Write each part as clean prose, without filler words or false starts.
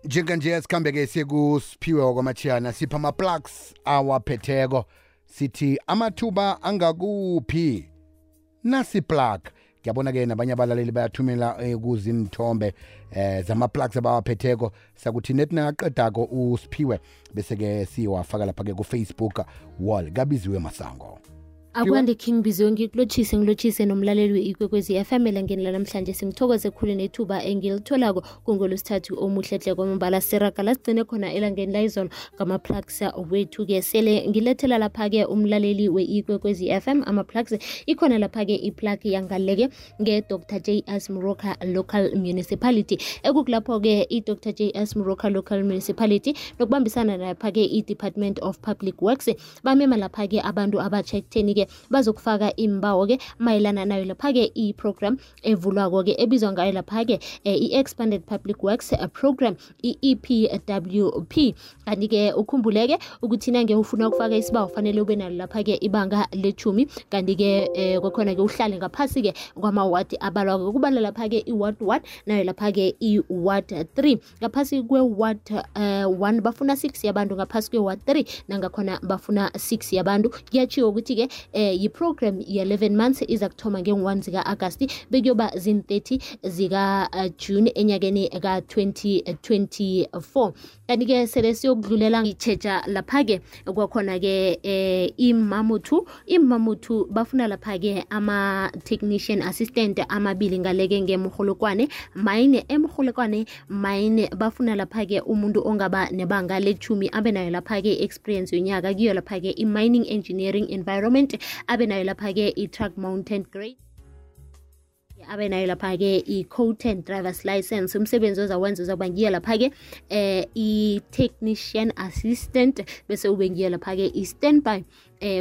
Njenganje sikhambeke sikusiphiwe okwamachiyana sipha ama-plugs awaphetheko sithi amathuba angakuphi nasi plug. Ngiyabona-ke nabanye abalaleli bayathumela kuzinthombe zama-plugs abawaphetheko sakuthi nethi nangaqedako usiphiwe bese-ke siwafaka lapha-ke ku-Facebook wall kabiziwe Masango. Akwande King Biziwe ngilotshise nomlaleli we-Ikwekwezi FM elangeni lanamhlanje singithokoze khulu nethuba engilitholako kungolosithathu omuhlehle kwamambala siraga lasigcine khona elangeni layizolo ngama-plugs wethu-ke sele ngilethela lapha-ke umlaleli we-Ikwekwezi FM ama-plugs ikhona lapha-ke iplug yangaleke nge-Dr. J.S. Moroka Local Municipality ekukulapho-ke i-Dr. J.S. Moroka Local Municipality nokubambisana lapha-ke i-Department of Public Works bamema lapha-ke abantu abatsha ekutheni-ke bazokufaka imbawo-ke mayelana nayo lapha-ke i-program evulwako-ke ebizwa ngayo lapha-ke i-Expanded Public Works Program i-EPWP. Kanti-ke ukhumbuleke ukuthi nange ufuna ukufaka isibawo fanele ube nalo lapha-ke ibanga le-10 kanti-ke kwakhona-ke uhlale ngaphasi-ke kwamawadi abalwako kubala lapha-ke i-ward 1 nayo lapha-ke i-ward 3 ngaphasi kwe-ward 1 bafuna 6 yabantu ngaphasi kwe-ward 3 nangakhona bafuna 6 yabantu. Kuyatshiwo ukuthi-ke yi-program ye-11 months iza kuthoma nge-1 zika-Agasti bekuyoba zin-30 zika-June enyakeni ka-2024. Kanti-ke sele siyokudlulela itshetsha lapha-ke kwakhona-ke iMamutu bafuna lapha-ke ama-technician assistant amabili ngaleke ngemrholokwane mayine bafuna lapha-ke umuntu ongaba nebanga le-10 abe nayo lapha-ke experience yonyaka kuyo lapha-ke i-mining engineering environment abe nayo lapha-ke i-truck mountain grade abe nayo lapha-ke i-coated driver's license. Umsebenzi ozawenza uzakuba ngiyo lapha-ke i-technician assistant bese ube ngiyo lapha-ke i-standby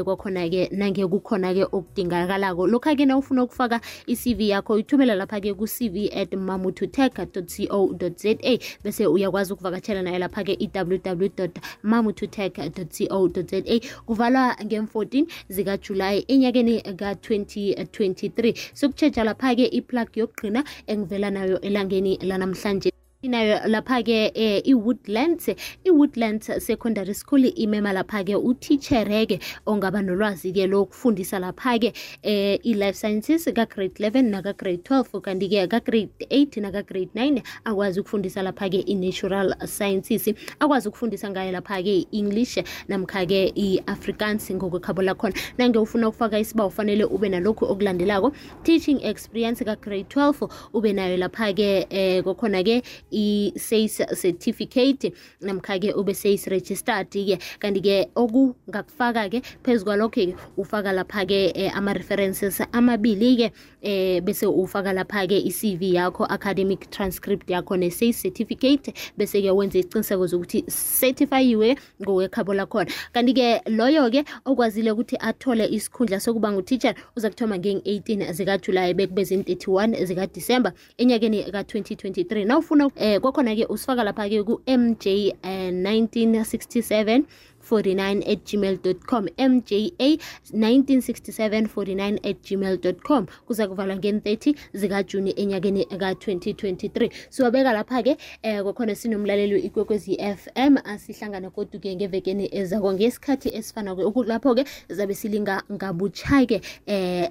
kwakhona-ke nange kukhona-ke okudingakalako. Lokha-ke na ufuna ukufaka i-CV yakho uyithumela lapha-ke ku-cv@mamututech.co.za bese uyakwazi ukuvakatshela nayo lapha-ke i-www.mamututech.co.za. kuvalwa nge-14 zikaJulayi enyakeni ka-2023. Sokutshetsha lapha-ke iplug yokugcina engivela nayo elangeni lanamhlanje inayo lapha-ke i-Woodlands Secondary School imema lapha-ke utitshereke ongaba nolwazi-ke lokufundisa lapha-ke i-life sciences ka-grade 11 naka-grade 12 kanti-ke ka-grade 8 naka-grade 9 akwazi ukufundisa lapha-ke i-natural sciences akwazi ukufundisa ngayo lapha-ke i-English namkha-ke i-Afrikaans ngokwekhabo lakhona. Nange ufuna ukufaka isibawo ufanele ube nalokhu okulandelako: teaching experience ka-grade 12 ube nayo lapha-ke kwakhona-ke i-SACE certificate namkha-ke ube SACE registered-ke. Kanti-ke okungakufaka-ke phezu kwalokho-ke ufaka lapha-ke ama-references amabili-ke bese ufaka lapha-ke i-CV yakho, academic transcript yakho ne-SACE certificate bese-ke wenze isiqiniseko zokuthi certifyiwe ngokwekhabo lakhona. Kanti-ke loyo-ke okwazile ukuthi athole isikhundla sokuba ngutitshala uza kuthoma nge-18 zikaJulayi bekube zin-31 zikaDisemba enyakeni ka-2023. Na ufuna kwakhona-ke usifaka lapha-ke ku-MJ 196749@gmail.com MJA 196749@gmail.com. kuza kuvalwa nge-30 zikaJuni enyakeni ka-2023. siwabeka lapha-ke kwakhona sinomlaleli we-Ikwekwezi FM asihlangana kodwa-ke ngevekeni ezako ngesikhathi esifana-ke lapho-ke zabe silinga ngabutsha-ke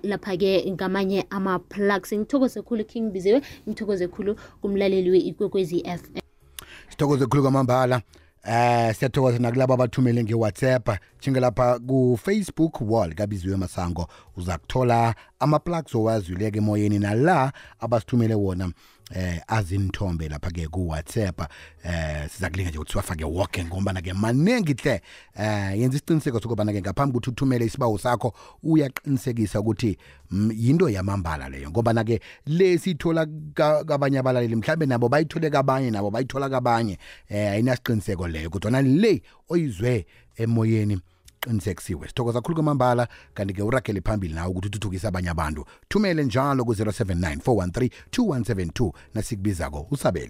lapha-ke ngamanye ama-plugs. Ngithokoze khulu King Biziwe, ngithokoze khulu kumlaleli we-Ikwekwezi FM. Sithokoze khulu kwamambala. Siyathokoza nakulabo abathumele nge-WhatsApp lapha ku-Facebook wall kabiziwe Masango uza kuthola ama-plugs owazwileke emoyeni nala abasithumele wona azinthombe lapha-ke ku-WhatsApp. Siza kulinga nje ukuthi siwafake woke ngombana-ke maningi hle. Yenza isiqiniseko sokubana-ke ngaphambi ukuthi uthumele isibawo sakho uyaqinisekisa ukuthi yinto yamambala leyo ngobana-ke le siyithola kabanye abalaleli mhlawumbe nabo bayithole kabanye nabo bayithola kabanye ayinasiqiniseko leyo kodwa le oyizwe emoyeni qinisekisiwe. Sithokoza kakhulu kwamambala kanti-ke uragele phambili nawe ukuthi uthuthukise abanye abantu. Thumele njalo ku-079 413 2172 nasikubizako usabele.